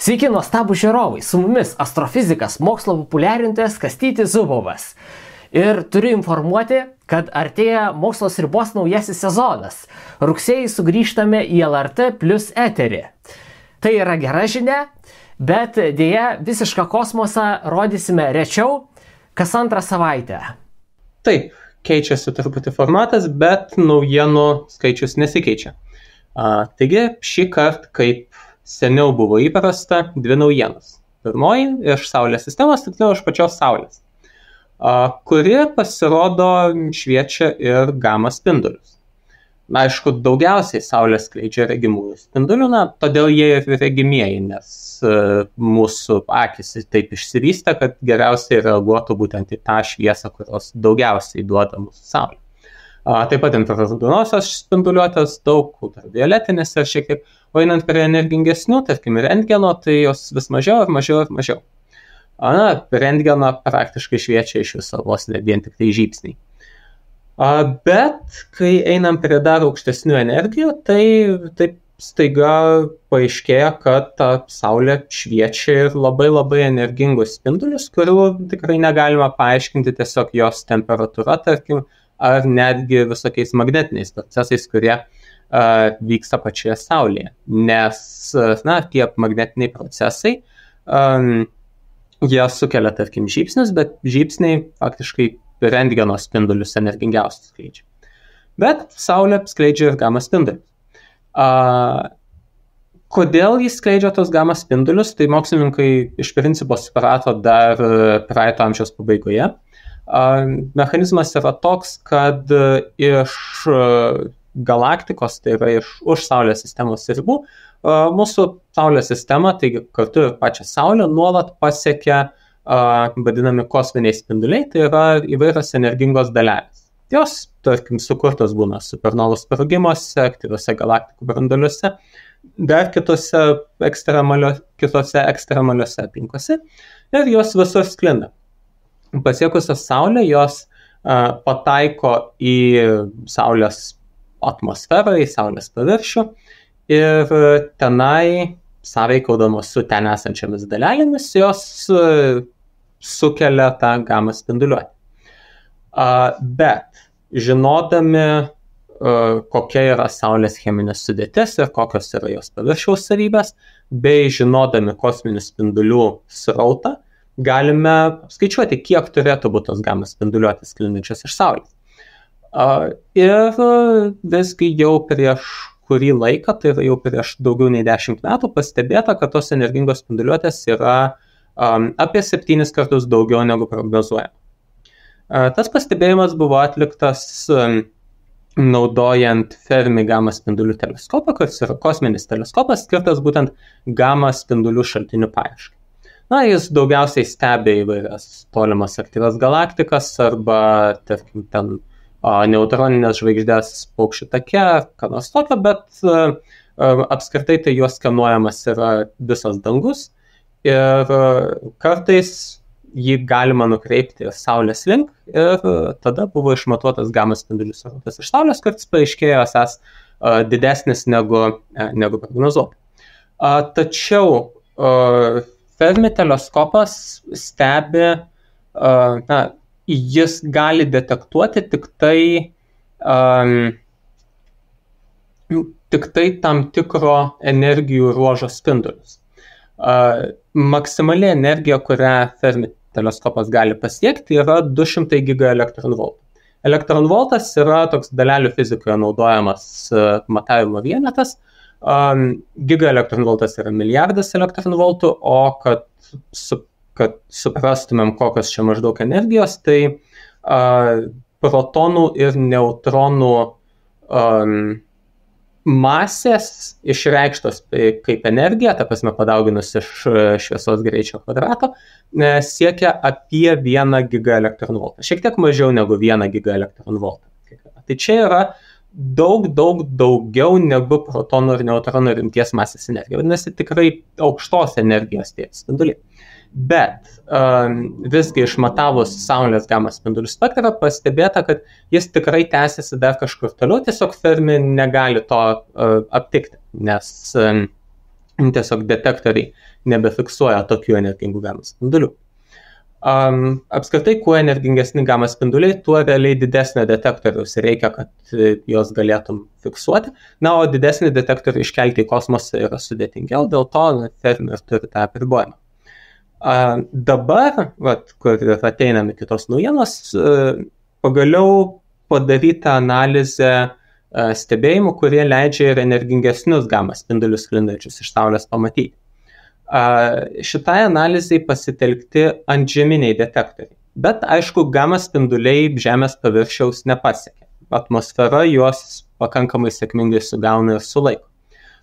Sveiki, nuostabų žiūrovai, su mumis astrofizikas, mokslo populiarintojas Kastytis Zubovas. Ir turiu informuoti, kad artėja Mokslo ribos naujasis sezonas. Rugsėjį sugrįžtame į LRT Plus eterį. Tai yra gera žinia, bet dėja visišką kosmosą rodysime rečiau, kas antrą savaitę. Taip, keičiasi truputį formatas, bet naujienų skaičius nesikeičia. Taigi šį kartą, kaip seniau buvo įprasta, dvi naujienos. Pirmoji iš Saulės sistemos, tiksliau iš pačios Saulės, kuri pasirodo šviečia ir gamą spindulius. Aišku, daugiausiai Saulė skleidžia regimųjų spindulių, todėl jie ir regimieji, nes mūsų akis taip išsivystė, kad geriausiai reaguotų būtent į tą šviesą, kurios daugiausiai duoda mūsų Saulė. Taip pat infraraudonosios spinduliuotės, daug ultravioletinės ir šiek tiek, o einant prie energingesnių, tarkim, rentgeno, tai jos vis mažiau ir mažiau ir mažiau. Rentgeno praktiškai šviečia iš viso vos ne vien tik tai žybsniai. Bet kai einam prie dar aukštesnių energijų, tai taip staiga paaiškėja, kad ta Saulė šviečia ir labai energingos spindulius, kurių tikrai negalima paaiškinti tiesiog jos temperatūra, tarkim, ar netgi visokiais magnetiniais procesais, kurie vyksta pačioje Saulėje. Nes tie magnetiniai procesai, jie sukelia, tarkim, žybsnius, bet žybsniai faktiškai rentgeno spindulius energingiausius skleidžia. Bet Saulė skleidžia ir gamą spindulius. Kodėl jis skleidžia tos gamą spindulius, tai mokslininkai iš principo suprato dar praeito amžiaus pabaigoje. Mechanizmas yra toks, kad iš galaktikos, tai yra už Saulės sistemos ribų, mūsų Saulės sistema, taigi kartu ir pačią Saulę, nuolat pasiekia vadinami kosminiai spinduliai, tai yra įvairios energingos dalelės. Jos, tarkim, sukurtos būna supernovų sprogimuose, aktyviuose galaktikų branduoliuose, dar kitose ekstremaliuose aplinkose ir jos visur sklinda. Pasiekusios Saulę, jos pataiko į Saulės atmosferą, į Saulės paviršių ir tenai, sąveikaudamos su ten esančiamis dalelėmis, jos sukelia tą gamą spinduliuotę. Bet žinodami, kokia yra Saulės cheminė sudėtis ir kokios yra jos paviršiaus savybės, bei žinodami kosminių spindulių srautą, galime skaičiuoti, kiek turėtų būti tos gamą spinduliuotės sklindančios iš Saulės. Ir visgi jau prieš kurį laiką, tai yra jau prieš daugiau nei 10 metų, pastebėta, kad tos energingos spinduliuotės yra apie 7 kartus daugiau negu prognozuojama. Tas pastebėjimas buvo atliktas naudojant Fermi gamą spindulių teleskopą, kuris yra kosminis teleskopas, skirtas būtent gamą spindulių šaltinių paieškai. Jis daugiausiai stebi įvairias tolimas aktyvias galaktikas arba, tarkim, ten neutroninės žvaigždės paukščių take, ką nors tokio, bet apskritai tai juos skenuojamas yra visas dangus ir kartais jį galima nukreipti Saulės link ir tada buvo išmatuotas gamą spindulių srautas iš Saulės, kuris paaiškėjo esąs didesnis negu prognozuota. Tačiau Fermi teleskopas stebi, jis gali detektuoti tik tai tam tikro energijų ruožo spindulius. Maksimali energija, kurią Fermi teleskopas gali pasiekti, yra 200 gigaelektronvoltų. Elektronvoltas yra toks dalelių fizikoje naudojamas matavimo vienetas. Gigaelektronvoltas yra milijardas elektronvoltų, o kad suprastumėm, kokios čia maždaug energijos, tai protonų ir neutronų masės išreikštos kaip energija, ta prasme padauginus iš šviesos greičio kvadrato, siekia apie 1 gigaelektronvoltą. Šiek tiek mažiau negu 1 gigaelektronvoltą. Tai čia yra daug daugiau negu protonų ir neutronų rimties masės energija. Vadinasi, tikrai aukštos energijos tie spinduliai. Bet visgi išmatavus Saulės gamą spindulių spektrą pastebėta, kad jis tikrai tęsiasi dar kažkur toliau, tiesiog Fermi negali to aptikti, nes tiesiog detektoriai nebefiksuoja tokių energingų gamma spindulių. Apskritai, kuo energingesni gamma spinduliai, tuo realiai didesnio detektoriaus reikia, kad jos galėtum fiksuoti. Na, o didesnį detektorių iškelti į kosmosą yra sudėtingiau, dėl to Fermi turi tą apribojimą. Dabar, kur ateiname kitos naujienos, pagaliau padaryta analizė stebėjimų, kurie leidžia ir energingesnius gamma spindulius sklindančius iš Saulės pamatyti. Šitai analizai pasitelkti antžeminiai detektoriai. Bet, aišku, gamma spinduliai Žemės paviršiaus nepasiekia. Atmosfera juos pakankamai sėkmingai sugauna ir sulaiko.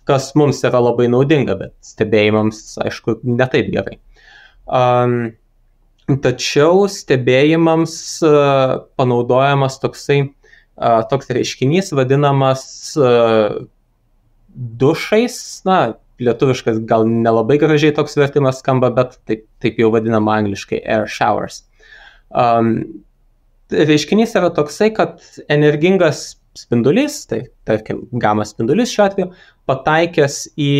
Kas mums yra labai naudinga, bet stebėjimams, aišku, netaip gerai. Tačiau stebėjimams panaudojamas toks reiškinys vadinamas dušais, lietuviškas gal nelabai gražiai toks vertimas skamba, bet taip jau vadinama angliškai air showers. Reiškinys yra toksai, kad energingas spindulys, tai tarkim gamma spindulys šiuo atveju, pataikęs į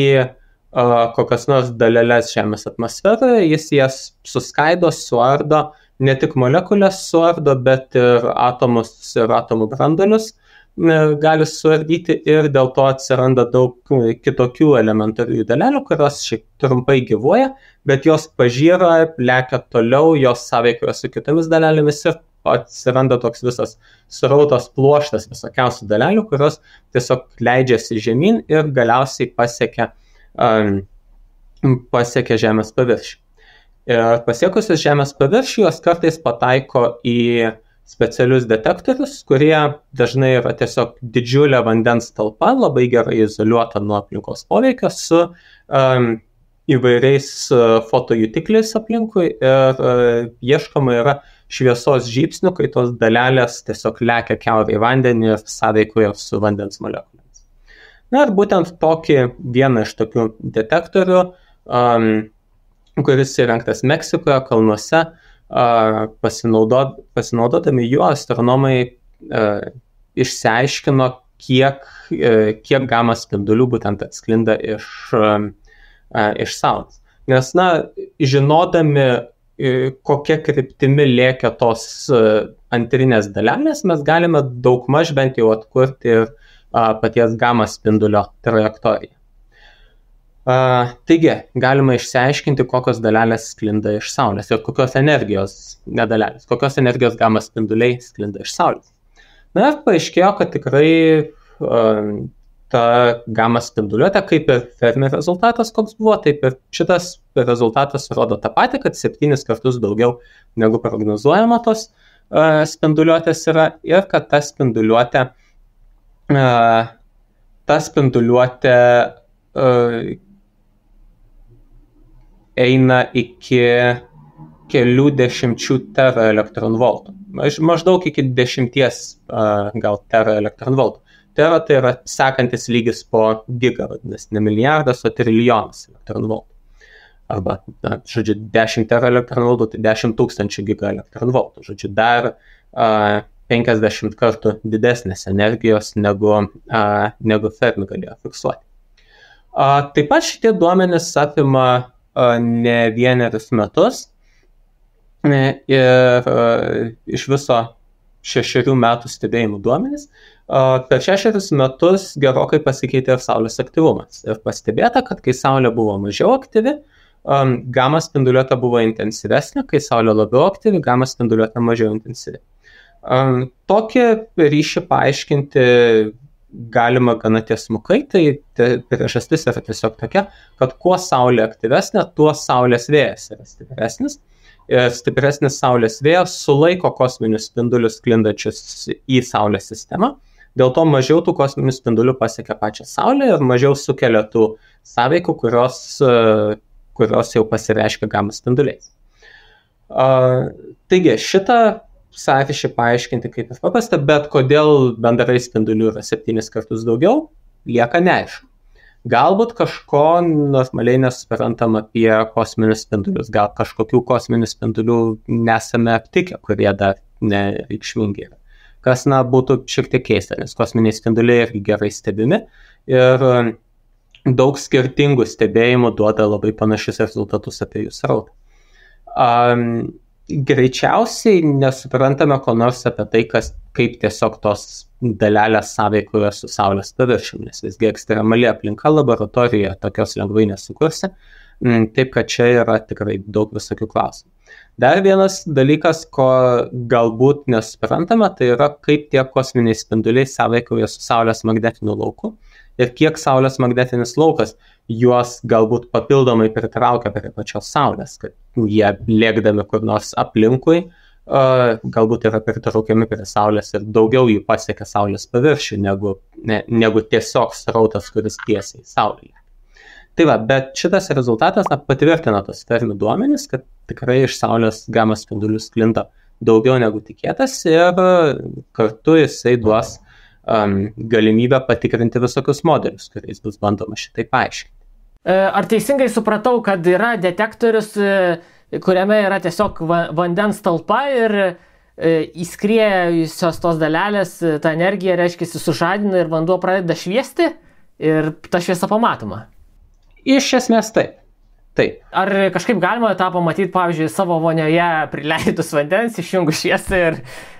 kokias nors daleles Žemės atmosferoje, jis jas suskaido, suardo, ne tik molekulės suardo, bet ir atomus ir atomų branduolius gali suardyti ir dėl to atsiranda daug kitokių elementarių dalelių, kurios šiek trumpai gyvuoja, bet jos pažyra, lekia toliau, jos sąveikoja su kitomis dalelėmis ir atsiranda toks visas srautas pluoštas visokiausių dalelių, kurios tiesiog leidžiasi žemyn ir galiausiai pasiekia Žemės paviršių. Ir pasiekusios Žemės paviršių, jos kartais pataiko į specialius detektorius, kurie dažnai yra tiesiog didžiulė vandens talpa, labai gerai izoliuota nuo aplinkos poveikio su įvairiais fotojutikliais aplinkui ir ieškoma yra šviesos žybsnių, kai tos dalelės tiesiog lekia kiaurai į vandenį ir sąveikoja su vandens molekulėmis. Na ir būtent tokį vieną iš tokių detektorių, kuris įrengtas Meksikoje kalnuose, pasinaudodami juo astronomai išsiaiškino, kiek gamma spindulių būtent atsklinda iš Saulės. Nes, žinodami, kokia kryptimi lėkia tos antrinės dalelės, mes galime daugmaž bent jau atkurti ir paties gamma spindulio trajektoriją. Taigi, galima išsiaiškinti, kokios dalelės sklinda iš Saulės ir kokios energijos, nedalelės, kokios energijos gamma spinduliai sklinda iš Saulės. Na ir paaiškėjo, kad tikrai ta gamma spinduliuotė, kaip ir Fermi rezultatas, koks buvo, taip ir šitas rezultatas rodo tą patį, kad 7 kartus daugiau negu prognozuojama tos spinduliuotės yra ir kad ta spinduliuotė eina iki kelių dešimčių teraelektronvoltų. Maždaug iki 10 gal teraelektronvoltų. Tera tai yra sekantis lygis po giga, vadinasi, ne milijardas, o trilijonas elektronvoltų. Arba, 10 teraelektronvoltų, tai 10 000 gigaelektronvoltų. Dar 50 kartų didesnės energijos negu Fermi galėjo fiksuoti. Taip pat šitie duomenys apima ne vienerius metus ir iš viso 6 metų stebėjimų duomenys. Per 6 metus gerokai pasikeitė ir Saulės aktyvumas. Ir pastebėta, kad kai Saulė buvo mažiau aktyvi, gamma spinduliuotė buvo intensyvesnė, kai Saulė labiau aktyvi, gamma spinduliuotė mažiau intensyvi. Tokį ryšį paaiškinti galima gana tiesmukai, tai priežastis yra tiesiog tokia, kad kuo Saulė aktyvesnė, tuo Saulės vėjas yra stipresnis. Ir stipresnis Saulės vėjas sulaiko kosminius spindulius sklindančius į Saulės sistemą. Dėl to mažiau tų kosminių spindulių pasiekia pačią Saulę ir mažiau sukelia tų sąveikų, kurios jau pasireiškia gamma spinduliais. Taigi, šitą sąryšį paaiškinti kaip ir paprasta, bet kodėl bendrai spindulių yra 7 kartus daugiau, lieka neaišku. Galbūt kažko normaliai nesuprantam apie kosminius spindulius, gal kažkokių kosminių spindulių nesame aptikę, kurie dar nereikšmingi yra. Kas, būtų šiek tiek keista, nes kosminiai spinduliai irgi gerai stebimi ir daug skirtingų stebėjimų duoda labai panašius rezultatus apie jų srautą. Greičiausiai nesuprantame ko nors apie tai, kaip tiesiog tos dalelės sąveikoja su Saulės paviršiumi, nes visgi ekstremali aplinka laboratorijoje tokios lengvai nesukursi, taip kad čia yra tikrai daug visokių klausimų. Dar vienas dalykas, ko galbūt nesuprantame, tai yra kaip tie kosminiai spinduliai sąveikoja su Saulės magnetiniu lauku ir kiek Saulės magnetinis laukas juos galbūt papildomai pritraukia prie pačios Saulės, kad jie lėkdami kur nors aplinkui galbūt yra pritraukiami prie Saulės ir daugiau jų pasiekia Saulės paviršių negu tiesiog srautas, kuris tiesiai Saulėje. Tai va, bet šitas rezultatas patvirtina tos fermi duomenys, kad tikrai iš Saulės gamma spindulių sklinda daugiau negu tikėtas ir kartu jisai duos galimybę patikrinti visokius modelius, kuriais bus bandoma šitai paaiškinti. Ar teisingai supratau, kad yra detektorius, kuriame yra tiesiog vandens talpa ir įskriejusios tos dalelės, ta energija, reiškia, sužadina ir vanduo pradeda šviesti ir ta šviesa pamatoma? Iš esmės taip. Taip. Ar kažkaip galima tą pamatyti, pavyzdžiui, savo vonioje prileidus vandens, išjungus šviesą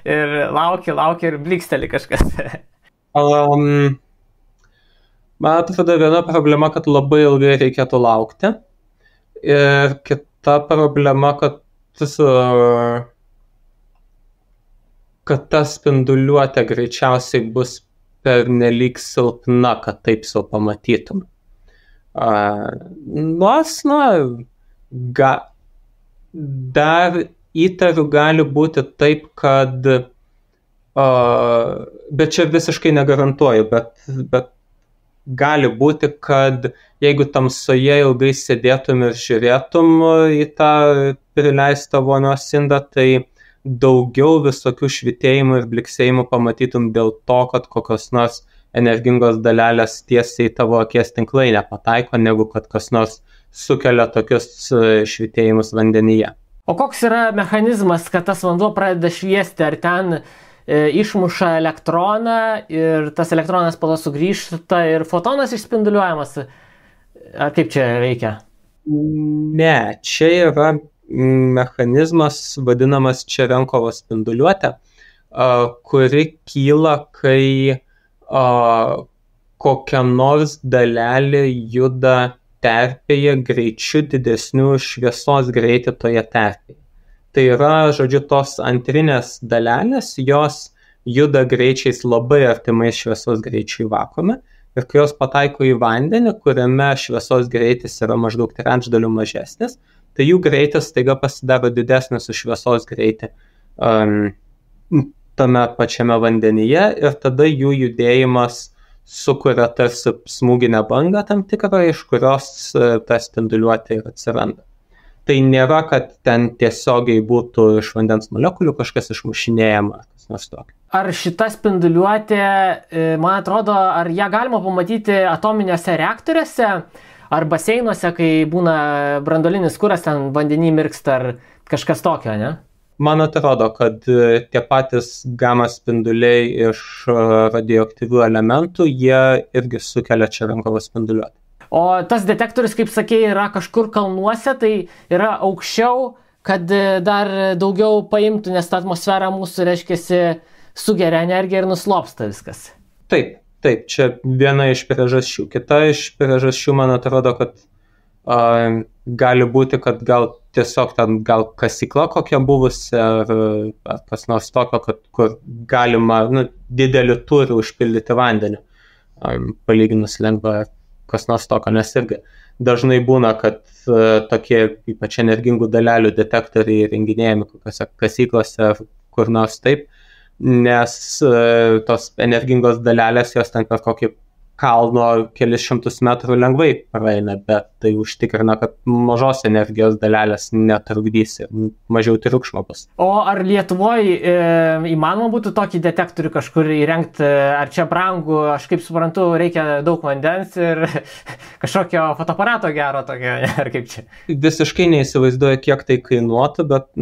ir lauki ir bliksteli kažkas? Man atrodo, viena problema, kad labai ilgai reikėtų laukti. Ir kita problema, kad ta spinduliuotė greičiausiai bus pernelyg silpna, kad taip sau pamatytum. Dar įtariu gali būti taip, kad bet čia visiškai negarantuoju, bet gali būti, kad jeigu tamsoje ilgai sėdėtum ir žiūrėtum į tą prileistą vonios indą, tai daugiau visokių švytėjimų ir bliksėjimų pamatytum dėl to, kad kokios nors energingos dalelės tiesiai tavo akies tinklainę pataiko, negu kad kas nors sukelia tokius švytėjimus vandenyje. O koks yra mechanizmas, kad tas vanduo pradeda šviesti? Ar ten išmuša elektroną ir tas elektronas po to sugrįžta ir fotonas išspinduliuojamas? Ar kaip čia veikia? Ne, čia yra mechanizmas vadinamas Čerenkovo spinduliuotė, kuri kyla, kai kokia nors dalelė juda terpėje greičiu didesniu šviesos greitį toje terpėje. Tai yra, žodžiu, tos antrinės dalelės, jos juda greičiais labai artimai šviesos greičiai vakuume ir kai jos pataiko į vandenį, kuriame šviesos greitis yra maždaug trečdaliu mažesnis, tai jų greitis staiga pasidaro didesnis už šviesos greitį tame pačiame vandenyje ir tada jų judėjimas sukuria tarsi smūginę bangą tam tikrą, iš kurios ta spinduliuotė ir atsiranda. Tai nėra, kad ten tiesiogiai būtų iš vandens molekulių kažkas išmušinėjama, kas nors tokio. Ar šita spinduliuotė, man atrodo, ar ją galima pamatyti atominiuose reaktoriuose ar baseinuose, kai būna branduolinis kuras, ten vandenį mirksta ar kažkas tokio, ne? Man atrodo, kad tie patys gamma spinduliai iš radioaktyvių elementų, jie irgi sukelia Čerenkovo spinduliuotę. O tas detektorius, kaip sakėjai, yra kažkur kalnuose, tai yra aukščiau, kad dar daugiau paimtų, nes ta atmosfera mūsų, reiškiasi, sugeria energiją ir nuslopsta viskas. Taip, čia viena iš priežasčių. Kita iš priežasčių, man atrodo, kad gali būti, kad gal tiesiog ten gal kasykla kokia buvusi ar kas nors tokio, kur galima didelį turį užpildyti vandeniu, palyginus lengva kas nors tokio, nes irgi dažnai būna, kad tokie ypač energingų dalelių detektoriai renginėjami kokiose kasyklose ar kur nors taip, nes tos energingos dalelės jos ten per kokį kalno kelis šimtus metrų lengvai praeina, bet tai užtikrina, kad mažos energijos dalelės netrukdys ir mažiau triukšmo bus. O ar Lietuvoje įmanoma būtų tokį detektorių kažkur įrengti, ar čia brangu, aš kaip suprantu, reikia daug vandens ir kažkokio fotoaparato gero tokio, ar kaip čia? Visiškai neįsivaizduoju, kiek tai kainuotų, bet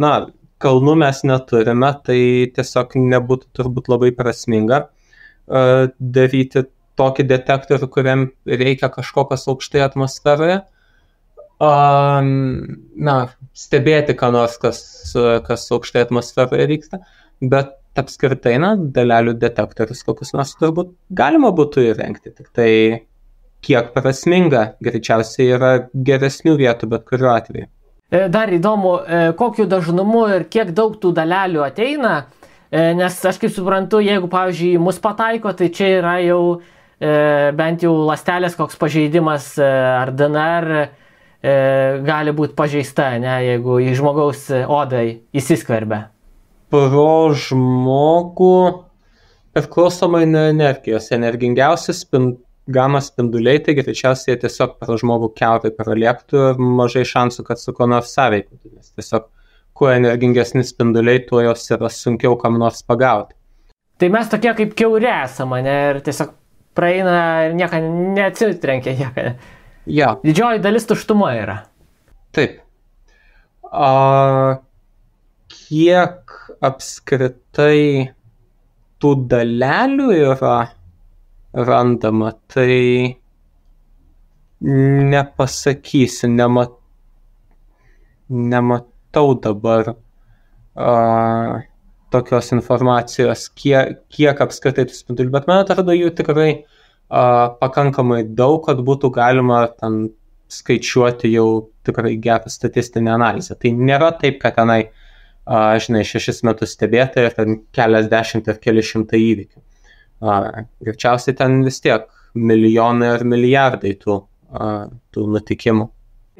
kalnų mes neturime, tai tiesiog nebūtų turbūt labai prasminga daryti tokį detektorių, kuriam reikia kažkokios aukštai atmosferoje. Stebėti, ką nors, kas aukštai atmosferoje vyksta, bet apskritai, dalelių detektorius kokius nors turbūt galima būtų įrengti, tik tai kiek prasminga, greičiausiai yra geresnių vietų, bet kuriuo atveju. Dar įdomu, kokiu dažnumu ir kiek daug tų dalelių ateina, nes aš kaip suprantu, jeigu, pavyzdžiui, mus pataiko, tai čia yra jau bent jau ląstelės koks pažeidimas ar DNR gali būti pažeista, jeigu į žmogaus odai įsiskverbia. Pro žmogų priklausomai nuo energijos. Energingiausi gama spinduliai, tai greičiausiai tiesiog pro žmogų kiaurai pralėktų ir mažai šansų, kad su ko nors sąveiktų. Nes tiesiog, kuo energingesni spinduliai, tuo jos yra sunkiau kam nors pagauti. Tai mes tokie kaip kiauri esame, ir tiesiog praeina ir nieko neatsitrenkia. Ja. Didžioji dalis tuštuma yra. Taip. Kiek apskritai tų dalelių yra randama, tai nepasakysiu, nematau dabar tokios informacijos, kiek apskritai tų spindulių, bet man atrodo jų tikrai pakankamai daug, kad būtų galima ten skaičiuoti jau tikrai gerą statistinę analizę. Tai nėra taip, kad tenai 6 metus stebėti ir ten keliasdešimt ir keli šimtai įvykių. Greičiausiai ten vis tiek milijonai ir milijardai tų nutikimų.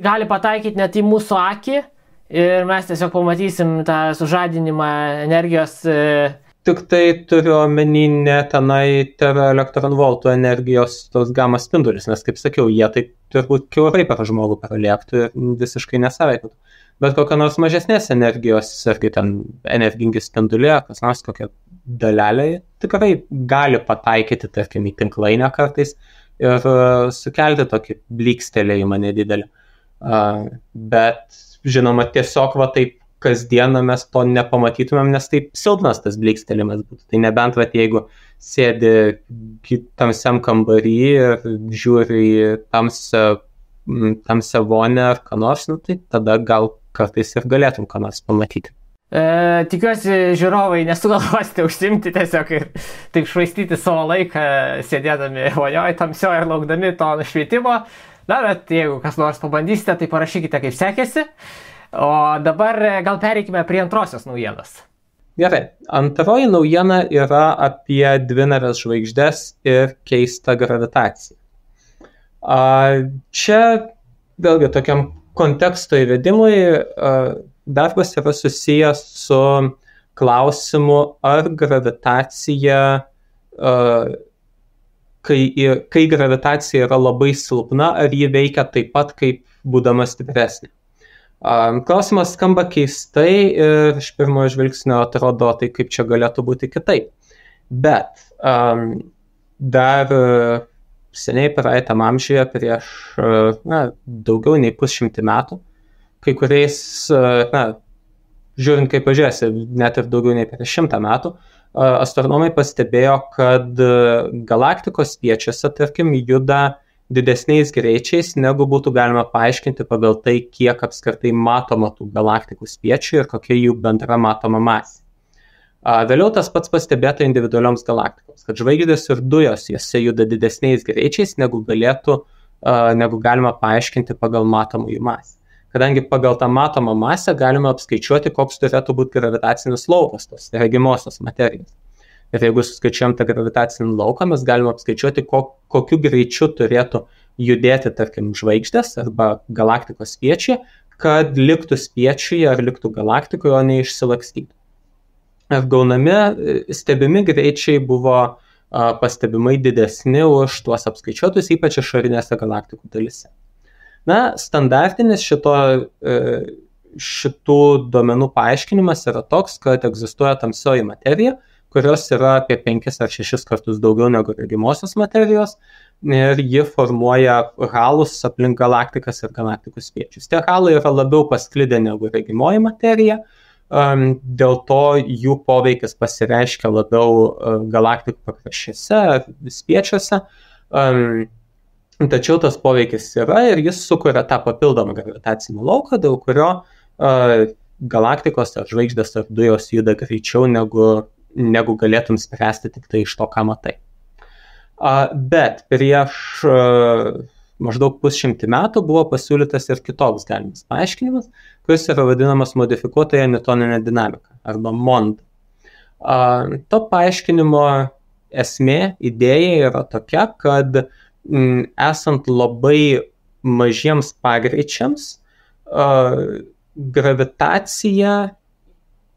Gali pataikyti net į mūsų akį ir mes tiesiog pamatysim tą sužadinimą energijos. Tik tai turiu omeny ne tenai teraelektronvoltų energijos tos gamas spindulius, nes kaip sakiau, jie taip turbūt kiaurai per žmogų pralėktų ir visiškai nesaveiktų. Bet kokia nors mažesnės energijos, ar kai ten energingi spinduliai, kas nors kokia dalelė, tikrai gali pataikyti, tarkim, į tinklainę kartais ir sukelti tokį blykstelėjimą nedidelį. Bet, žinoma, tiesiog taip kasdieną mes to nepamatytumėm, nes taip silpnas tas blykstelėjimas būtų. Tai nebent, jeigu sėdi tamsiam kambarį ir žiūri į tamsią vonę ar ką nors, tai tada gal kartais ir galėtum ką nors pamatyti. Tikiuosi, žiūrovai nesugalvosite užsimti tiesiog ir taip švaistyti savo laiką, sėdėdami vonioje tamsioje ir laukdami to nušvietimo. Bet jeigu kas nors pabandysite, tai parašykite, kaip sekėsi. O dabar gal pereikime prie antrosios naujienos. Gerai, antroji naujiena yra apie dvinarės žvaigždes ir keistą gravitaciją. Čia vėlgi tokiam konteksto įvedimui darbas yra susijęs su klausimu, ar gravitacija, kai gravitacija yra labai silpna, ar ji veikia taip pat, kaip būdama stipresnė. Klausimas skamba keistai ir iš pirmojo žvilgsnio atrodo, tai kaip čia galėtų būti kitaip. Bet dar seniai praeitam amžiuje, prieš daugiau nei 100 metų, kai kuriais, žiūrint kaip pažiūrėsi, net ir daugiau nei prieš 100 metų, astronomai pastebėjo, kad galaktikos spiečiuose, tarkim, juda didesniais greičiais, negu būtų galima paaiškinti pagal tai, kiek apskritai matoma tų galaktikų spiečių ir kokia jų bendra matoma masė. Vėliau tas pats pastebėta individualioms galaktikoms, kad žvaigždės ir dujos jose juda didesniais greičiais, negu galima paaiškinti pagal matomą jų masę. Kadangi pagal tą matomą masę galima apskaičiuoti, koks turėtų būti gravitacinis laukas tos regimosios materijos. Ir jeigu suskaičiuojam tą gravitacinį lauką, mes galime apskaičiuoti, kokiu greičiu turėtų judėti, tarkim, žvaigždės arba galaktikos spiečiai, kad liktų spiečiuje ar liktų galaktikoje, o ne išsilakstytų. Ir stebimi greičiai buvo pastebimai didesni už tuos apskaičiuotus, ypač išorinėse galaktikų dalyse. Standartinis šitų duomenų paaiškinimas yra toks, kad egzistuoja tamsioji materija, kurios yra apie 5 ar 6 kartus daugiau negu regimosios materijos ir ji formuoja halus aplink galaktikas ir galaktikų spiečius. Tie halai yra labiau pasklidę negu regimoji materija, dėl to jų poveikis pasireiškia labiau galaktikų pakraščiuose, spiečiuose, Tačiau tas poveikis yra ir jis sukuria tą papildomą gravitacinį lauką, dėl kurio galaktikos ar žvaigždės ar dujos juda greičiau negu galėtum spręsti tik tai iš to, ką matai. Bet prieš maždaug 100 metų buvo pasiūlytas ir kitoks galimas paaiškinimas, kuris yra vadinamas modifikuotąją newtoninę dinamiką arba MOND. To paaiškinimo esmė, idėja yra tokia, kad esant labai mažiems pagreičiams, gravitacija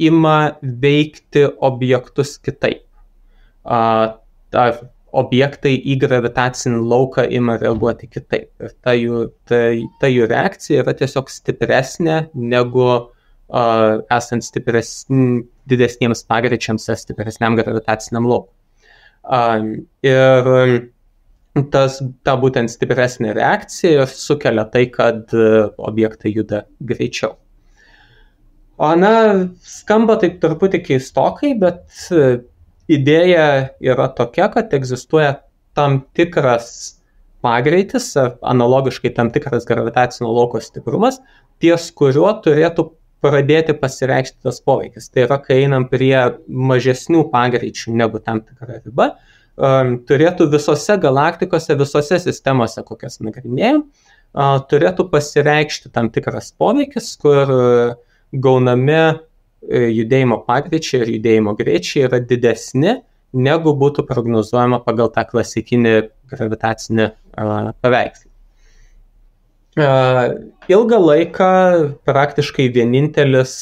ima veikti objektus kitaip. Objektai į gravitacinį lauką ima reaguoti kitaip. Ir ta jų reakcija yra tiesiog stipresnė negu esant didesniems pagreičiams ar stipresniam gravitaciniam laukui. Ir ta būtent stipresnė reakcija sukelia tai, kad objektai juda greičiau. Skamba taip truputį keistokai, bet idėja yra tokia, kad egzistuoja tam tikras pagreitis, analogiškai tam tikras gravitacinio lauko stiprumas, ties kuriuo turėtų pradėti pasireikšti tas poveikis. Tai yra, kai einam prie mažesnių pagreičių negu tam tikra riba, turėtų visose galaktikose, visose sistemose, kokias nagrinėjom, turėtų pasireikšti tam tikras poveikis, kur gaunami judėjimo pagreičiai ir judėjimo greičiai yra didesni, negu būtų prognozuojama pagal tą klasikinį gravitacinį paveikslą. Ilgą laiką praktiškai vienintelis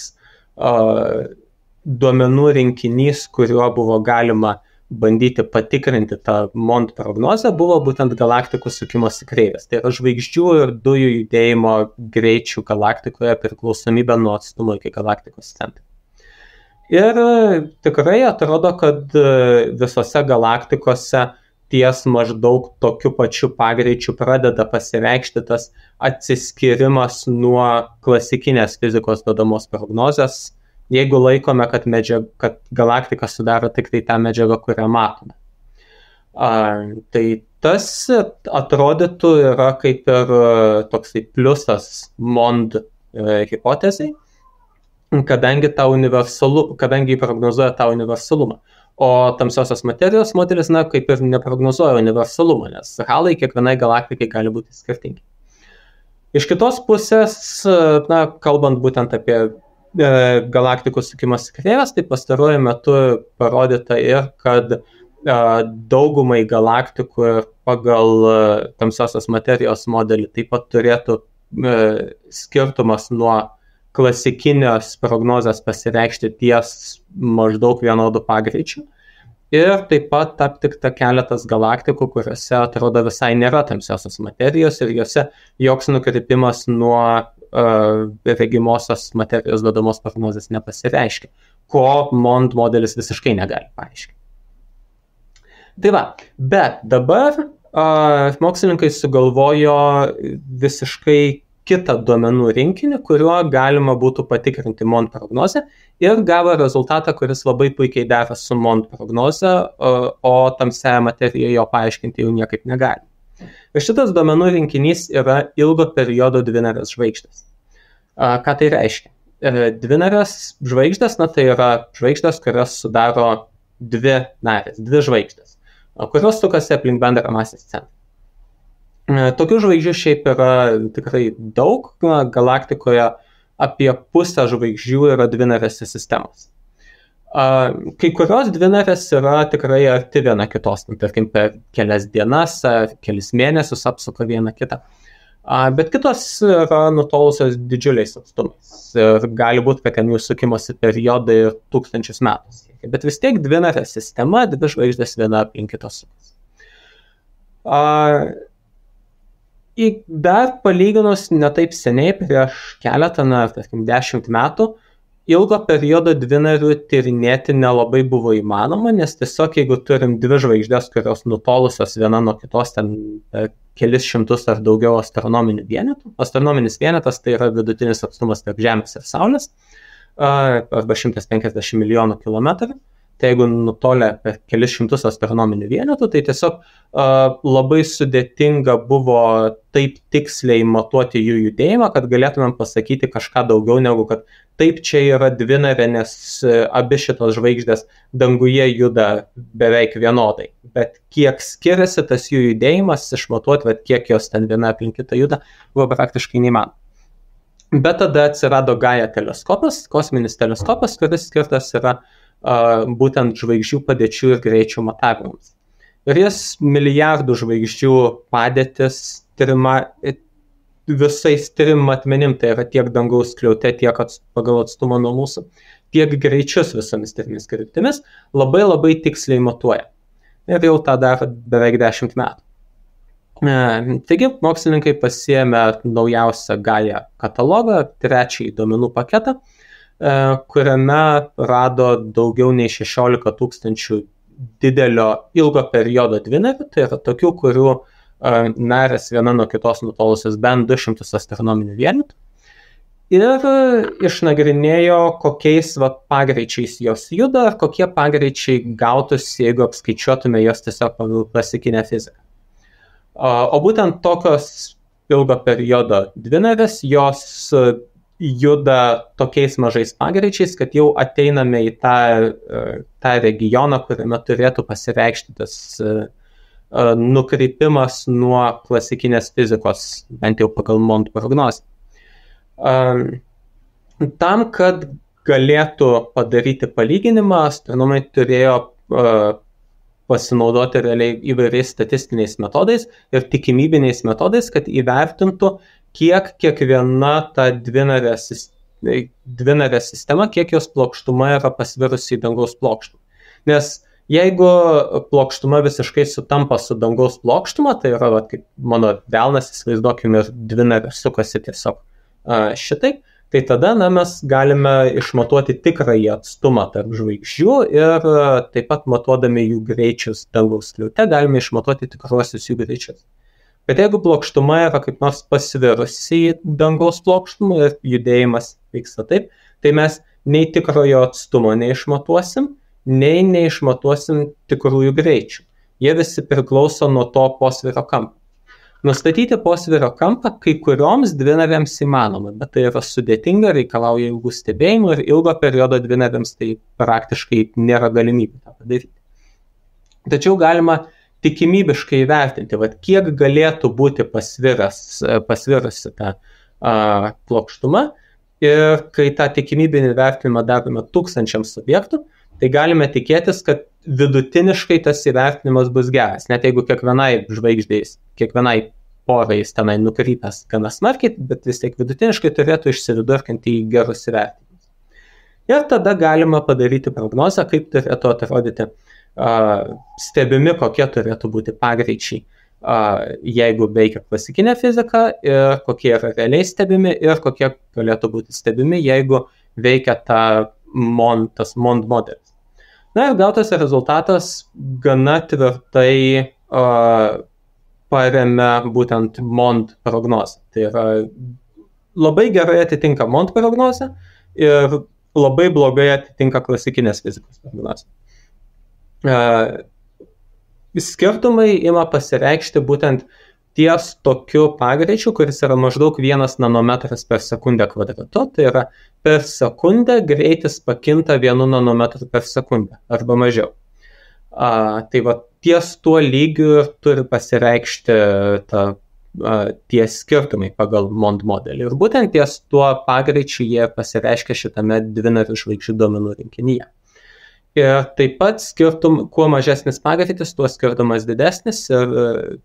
duomenų rinkinys, kuriuo buvo galima bandyti patikrinti tą MOND prognozę, buvo būtent galaktikų sukimosi kreivės. Tai yra žvaigždžių ir dujų judėjimo greičių galaktikoje priklausomybė nuo atstumo iki galaktikos centro. Ir tikrai atrodo, kad visose galaktikose ties maždaug tokiu pačiu pagreičiu pradeda pasireikšti tas atsiskirimas nuo klasikinės fizikos duodamos prognozės, jeigu laikome, kad galaktika sudaro tik tai tą medžiagą, kurią matome. Tai tas atrodytų yra kaip ir toksai pliusas MOND hipotezai, kadangi prognozuoja tą universalumą. O tamsiosios materijos modelis, kaip ir neprognozuoja universalumą, nes halai kiekvienai galaktikai gali būti skirtingi. Iš kitos pusės, kalbant būtent apie galaktikų sukimosi kreivės, tai pastaruoju metu parodyta ir, kad daugumai galaktikų ir pagal tamsiosios materijos modelį taip pat turėtų skirtumas nuo klasikinės prognozės pasireikšti ties maždaug vienodų pagreičių. Ir taip pat aptikta keletas galaktikų, kuriuose atrodo visai nėra tamsiosios materijos ir juose joks nukrypimas nuo regimosios materijos duodamos prognozės nepasireiškia, ko MOND modelis visiškai negali paaiškinti. Tai va, bet dabar mokslininkai sugalvojo visiškai kitą duomenų rinkinį, kuriuo galima būtų patikrinti MOND prognozę ir gavo rezultatą, kuris labai puikiai dera su MOND prognoze, o tamsiąją materiją jo paaiškinti jau niekaip negali. Ir šitas duomenų rinkinys yra ilgo periodo dvinarės žvaigždės. Ką tai reiškia? Dvinarės žvaigždės, tai yra žvaigždės, kurios sudaro dvi žvaigždės, kurios sukasi aplink bendrą masės centrą. Tokių žvaigždžių šiaip yra tikrai daug, galaktikoje apie pusę žvaigždžių yra dvinarėse sistemos. Kai kurios dvinarės yra tikrai arti viena kitos, tarkim per kelias dienas ar kelis mėnesius apsuka vieną kitą. Bet kitos yra nutolusios didžiuliais atstumais ir gali būti, kad ten jų sukimosi periodai ir 1000 metų. Bet vis tiek dvinarė sistema, dvi žvaigždės viena aplink kitos sukasi. Dar palyginus netaip seniai, prieš keletą, tarkim 10 metų, ilgo periodo dvinarių tyrinėti nelabai buvo įmanoma, nes tiesiog jeigu turim dvi žvaigždės, kurios nutolusios viena nuo kitos ten kelis šimtus ar daugiau astronominių vienetų. Astronominis vienetas tai yra vidutinis atstumas tarp Žemės ir Saulės, arba 150 milijonų kilometrų. tai jeigu nutolę per kelis šimtus astronominių vienetų, tai tiesiog labai sudėtinga buvo taip tiksliai matuoti jų judėjimą, kad galėtumėm pasakyti kažką daugiau negu kad taip čia yra dvinarė, nes abi šitos žvaigždės danguje juda beveik vienodai. Bet kiek skiriasi tas jų judėjimas, išmatuoti, bet kiek jos ten viena aplink kitą juda, buvo praktiškai neįmanoma. Bet tada atsirado Gaia teleskopas, kosminis teleskopas, kuris skirtas yra būtent žvaigždžių padėčių ir greičių matavimams. Ir jis milijardų žvaigždžių padėtis visais trim matmenim, tai yra tiek dangaus skliaute, tiek pagal atstumą nuo mūsų, tiek greičius visomis trimis kryptimis, labai labai tiksliai matuoja. Ir jau tą daro beveik 10 metų. Taigi, mokslininkai pasiėmė naujausią Gaia katalogą, 3 duomenų paketą, kuriame rado daugiau nei 16 000 didelio ilgo periodo dvinarių, tai yra tokių, kurių narės viena nuo kitos nutolusios bent 200 astronominių vienetų. Ir išnagrinėjo, kokiais pagreičiais jos juda, ar kokie pagreičiai gautųsi, jeigu apskaičiuotume jos tiesiog pagal klasikinę fiziką. O būtent tokios ilgo periodo dvinarės, jos juda tokiais mažais pagreičiais, kad jau ateiname į tą regioną, kuriame turėtų pasireikšti tas nukrypimas nuo klasikinės fizikos, bent jau pagal Mond prognozę. Tam, kad galėtų padaryti palyginimą, astronomai turėjo pasinaudoti realiai įvairiais statistiniais metodais ir tikimybiniais metodais, kad įvertintų, kiek kiekviena ta dvinarė sistema, kiek jos plokštuma yra pasvirusi į dangaus plokštumą. Nes jeigu plokštuma visiškai sutampa su dangaus plokštuma, tai yra, kaip mano delnas, įsivaizduokime, ir dvinarė sukasi tiesiog šitai, tai tada mes galime išmatuoti tikrąjį atstumą tarp žvaigždžių ir taip pat matuodami jų greičius dangaus skliaute galime išmatuoti tikruosius jų greičius. Bet jeigu plokštuma yra kaip nors pasvirusi į dangaus plokštumą ir judėjimas vyksta taip, tai mes nei tikrojo atstumo neišmatuosim, nei neišmatuosim tikrųjų greičių. Jie visi priklauso nuo to posvyrio kampo. Nustatyti posvyrio kampą kai kurioms dvinarėms įmanoma, bet tai yra sudėtinga, reikalauja ilgų stebėjimų ir ilgo periodo dvinarėms tai praktiškai nėra galimybė tą padaryti. Tačiau galima tikimybiškai įvertinti, kiek galėtų būti pasvirusi ta plokštuma, ir kai tą tikimybinį vertinimą darome 1000 objektų, tai galime tikėtis, kad vidutiniškai tas įvertinimas bus geras, net jeigu kiekvienai žvaigždės, kiekvienai porai jis tenai nukrypęs gana smarkiai, bet vis tiek vidutiniškai turėtų išsividurkinti į gerus įvertinimus. Ir tada galima padaryti prognozę, kaip turėtų atrodyti stebimi, kokie turėtų būti pagreičiai, jeigu veikia klasikinė fizika, ir kokie yra realiai stebimi, ir kokie galėtų būti stebimi, jeigu veikia tas Mond modelis. Na ir gautas rezultatas gana tvirtai paremia būtent Mond prognozę. Tai yra labai gerai atitinka Mond prognozę ir labai blogai atitinka klasikinės fizikos prognozę. Skirtumai ima pasireikšti būtent ties tokiu pagreičiu, kuris yra maždaug 1 nanometras per sekundę kvadratu, tai yra per sekundę greitis pakinta 1 nanometrų per sekundę arba mažiau. Tai ties tuo lygiu turi pasireikšti tie skirtumai pagal Mond modelį. Ir būtent ties tuo pagreičiu jie pasireiškia šitame dvinarių žvaigždžių duomenų rinkinyje. Ir taip pat kuo mažesnis pagreitis, tuo skirtumas didesnis ir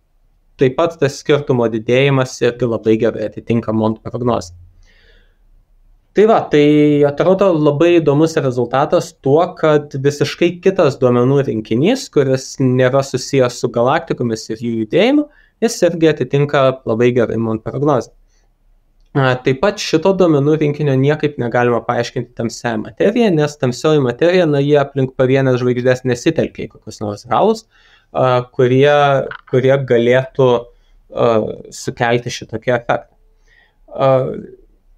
taip pat tas skirtumo didėjimas irgi labai gerai atitinka Mond prognozę. Tai atrodo labai įdomus rezultatas tuo, kad visiškai kitas duomenų rinkinys, kuris nėra susijęs su galaktikomis ir jų judėjimu, jis irgi atitinka labai gerai Mond prognozę. Taip pat šito duomenų rinkinio niekaip negalima paaiškinti tamsiąją materiją, nes tamsioji materija, jie aplink pavienės žvaigždės nesitelkia į kokius nors ralus, kurie galėtų sukelti šitokį efektą.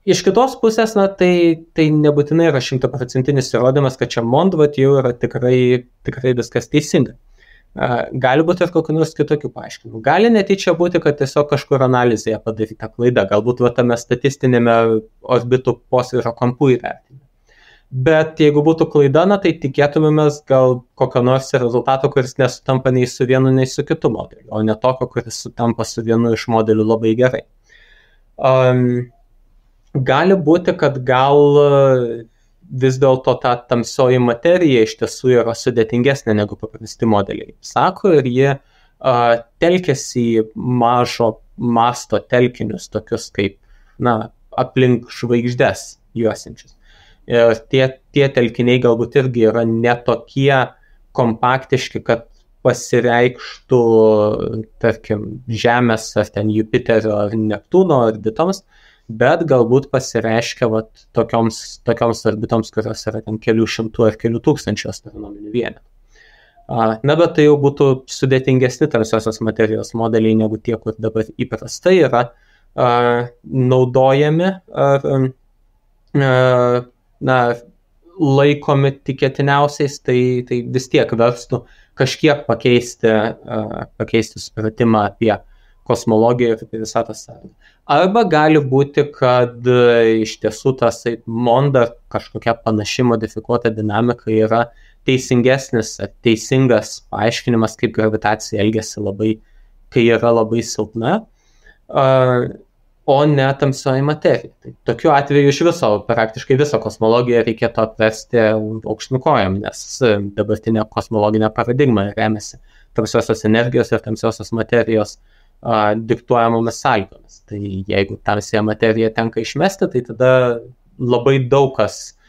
Iš kitos pusės, tai nebūtinai yra 100% įrodymas, kad čia Mondvat jau yra tikrai viskas teisinga. Gali būti ir kokių nors kitokių paaiškinimų. Gali netyčia būti, kad tiesiog kažkur analizėje padaryta klaida, galbūt tame statistinėme orbitų posvyrio kampų įvertinime. Bet jeigu būtų klaida, tai tikėtumėmės gal kokio nors rezultato, kuris nesutampa nei su vienu, nei su kitu modeliu, o ne tokio, kuris sutampa su vienu iš modelių labai gerai. Gali būti, kad gal vis dėlto ta tamsioji materija iš tiesų yra sudėtingesnė negu paprasti modeliai. Sako, ir jie telkiasi į mažo masto telkinius, tokius kaip, aplink žvaigždes juosinčius. Ir tie telkiniai galbūt irgi yra netokie kompaktiški, kad pasireikštų, tarkim, Žemės ar ten Jupiterio ar Neptūno orbitoms, bet galbūt pasireiškia tokioms orbitoms, kurios yra ten kelių šimtų ar kelių tūkstančių astronominių vienetų. Bet tai jau būtų sudėtingesni tamsiosios materijos modeliai negu tie, kur dabar įprastai yra naudojami ar laikomi tikėtiniausiais, tai vis tiek verstų kažkiek pakeisti supratimą apie kosmologiją ir apie visatos sąrangą. Arba gali būti, kad iš tiesų tas Monda kažkokia panaši modifikuota dinamika yra teisingesnis ar teisingas paaiškinimas, kaip gravitacija elgiasi kai yra labai silpna, o ne tamsioji materija. Tai tokiu atveju iš viso, praktiškai visą kosmologiją reikėtų apversti aukštyn kojom, nes dabartinė kosmologinė paradigma remiasi tamsiosios energijos ir tamsiosios materijos diktuojamomis sąlygomis. Tai jeigu tamsiąją materiją tenka išmesti, tai tada labai daug kas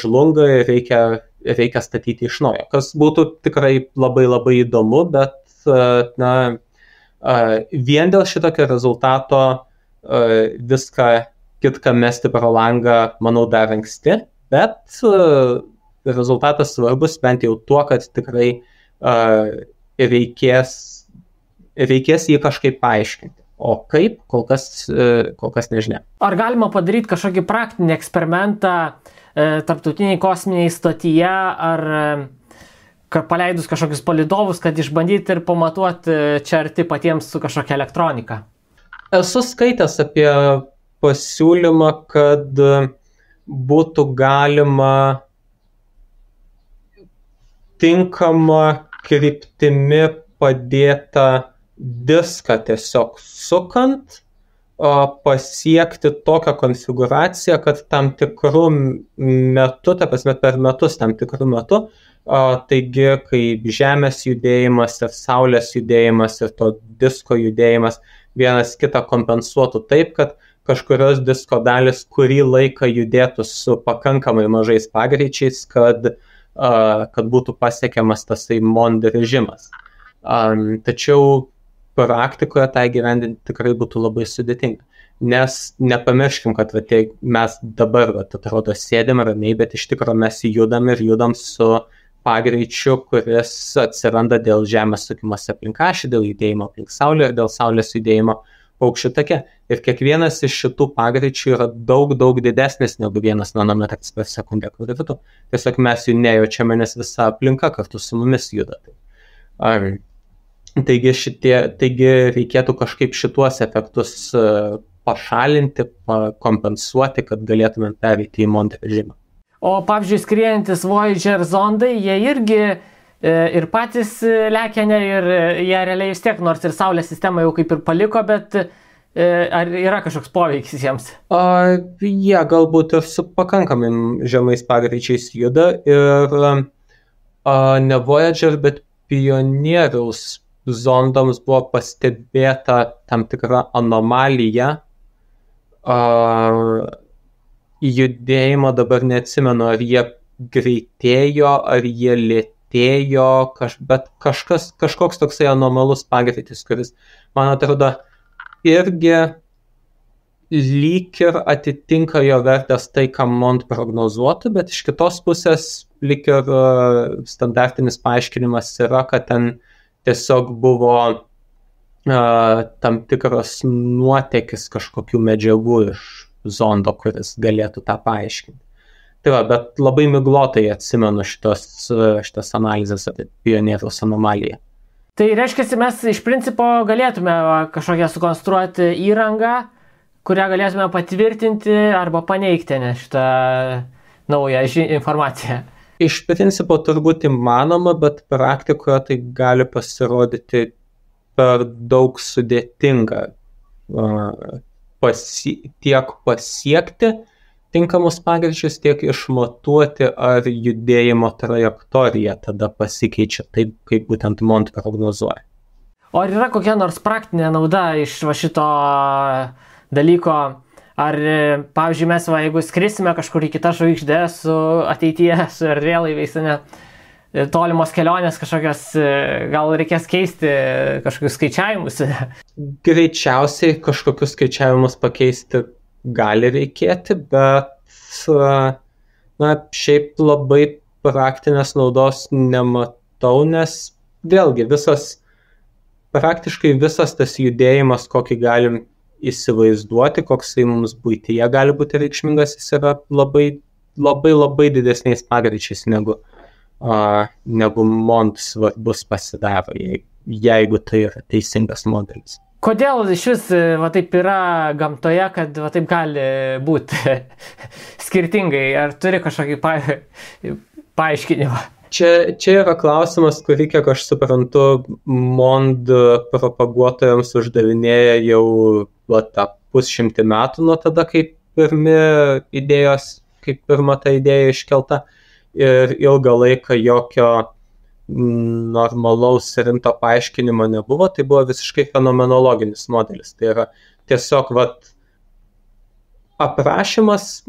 žlunga ir reikia statyti iš naujo. Kas būtų tikrai labai labai įdomu, bet vien dėl šitokio rezultato viską kitką mesti pro langą, manau, dar anksti, bet rezultatas svarbus bent jau tuo, kad tikrai reikės jį kažkaip paaiškinti. O kaip, kol kas nežinia. Ar galima padaryti kažkokį praktinį eksperimentą tarptautiniai kosminiai stotyje, ar paleidus kažkokius palydovus, kad išbandyti ir pamatuoti čia arti patiems su kažkokia elektronika? Esu skaitęs apie pasiūlymą, kad būtų galima tinkama kryptimi padėta diską tiesiog sukant, pasiekti tokią konfiguraciją, kad tam tikrų metų, per metus tam tikrų metų, taigi kaip Žemės judėjimas ir Saulės judėjimas ir to disko judėjimas vienas kitą kompensuotų taip, kad kažkurios disko dalis kurį laiką judėtų su pakankamai mažais pagreičiais, kad būtų pasiekiamas tasai Mond režimas. Tačiau praktikoje tai gyvendinti tikrai būtų labai sudėtinga. Nes nepamirškim, kad mes dabar, atrodo, sėdėm ramiai, bet iš tikrųjų mes judam su pagreičiu, kuris atsiranda dėl Žemės sukimosi aplink ašį, dėl judėjimo aplink Saulę ir dėl Saulės judėjimo paukščių take. Ir kiekvienas iš šitų pagreičių yra daug didesnis negu 1 nanometras per sekundę gravitu. Tiesiog mes jų nejaučiame, nes visa aplinka kartu su mumis juda. Taigi reikėtų kažkaip šituos efektus pašalinti, kompensuoti, kad galėtume pereiti į Mond režimą. O pavyzdžiui, skriejantis Voyager zondai, jie irgi ir patys lekia, ir jie realiai vis tiek, nors ir Saulės sistemą jau kaip ir paliko, bet ar yra kažkoks poveikis jiems? Jie galbūt ir su pakankamai žemais pagreičiais juda ir ne Voyager, bet Pionieriaus zondams buvo pastebėta tam tikra anomalija judėjimo, dabar neatsimenu, ar jie greitėjo, ar jie lėtėjo, bet kažkoks toksai anomalus pagreitis, kuris, man atrodo, irgi lyg ir atitinka jo vertės tai, ką Mond prognozuotų, bet iš kitos pusės lyg ir standartinis paaiškinimas yra, kad ten tiesiog buvo tam tikras nuotėkis kažkokių medžiagų iš zondo, kuris galėtų tą paaiškinti. Tai va, bet labai miglotai atsimenu šitas analizės apie pionieriaus anomaliją. Tai reiškia, mes iš principo galėtume kažkokią sukonstruoti įrangą, kurią galėtume patvirtinti arba paneigti šitą naują informaciją. Iš principo turbūt įmanoma, bet praktikoje tai gali pasirodyti per daug sudėtinga tiek pasiekti tinkamus pagreičius, tiek išmatuoti, ar judėjimo trajektorija tada pasikeičia taip, kaip būtent MOND prognozuoja. O ar yra kokia nors praktinė nauda iš šito dalyko? Ar, pavyzdžiui, mes, jeigu skrisime kažkur į kitą žvaigždę su ateityje, su erdvėlaiviais, tolimos kelionės kažkokios, gal reikės keisti kažkokius skaičiavimus? Greičiausiai kažkokius skaičiavimus pakeisti gali reikėti, bet šiaip labai praktinės naudos nematau, nes vėlgi praktiškai visas tas judėjimas, kokį galim įsivaizduoti, koksai mums buityje gali būti reikšmingas, jis yra labai, labai, labai didesniais pagreičiais negu MOND svarbus pasidaro, jeigu tai yra teisingas modelis. Kodėl iš vis taip yra gamtoje, kad taip gali būti skirtingai? Ar turi kažkokį paaiškinimą? Čia yra klausimas, kurį, kiek aš suprantu, MOND propaguotojams uždavinėja jau tą 150 metų nuo tada, kai pirma ta idėja iškelta, ir ilgą laiką jokio normalaus rimto paaiškinimo nebuvo, tai buvo visiškai fenomenologinis modelis. Tai yra tiesiog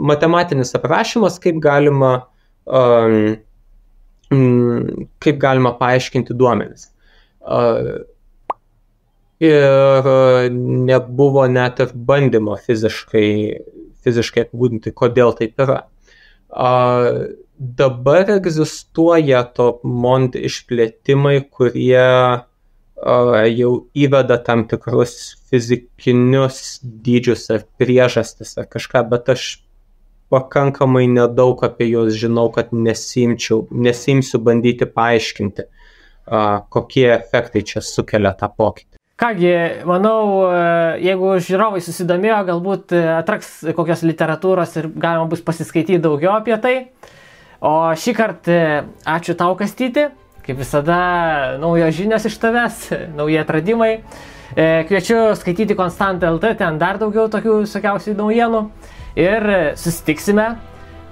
matematinis aprašymas, kaip galima paaiškinti duomenis. Ir nebuvo net ir bandymo fiziškai apibūdinti, kodėl taip yra. Dabar egzistuoja to MOND išplėtimai, kurie jau įveda tam tikrus fizikinius dydžius ar priežastis ar kažką, bet aš pakankamai nedaug apie juos žinau, kad nesimsiu bandyti paaiškinti, kokie efektai čia sukelia tą pokytį. Kągi, manau, jeigu žiūrovai susidomėjo, galbūt atraks kokios literatūros ir galima bus pasiskaityti daugiau apie tai. O šį kartą ačiū tau, Kastyti, kaip visada naujos žinios iš tavęs, nauji atradimai. Kviečiu skaityti Konstant.lt, ten dar daugiau tokių visokiausių naujienų ir susitiksime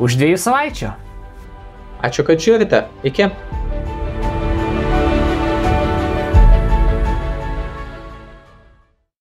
už 2 savaičių. Ačiū, kad žiūrite. Iki.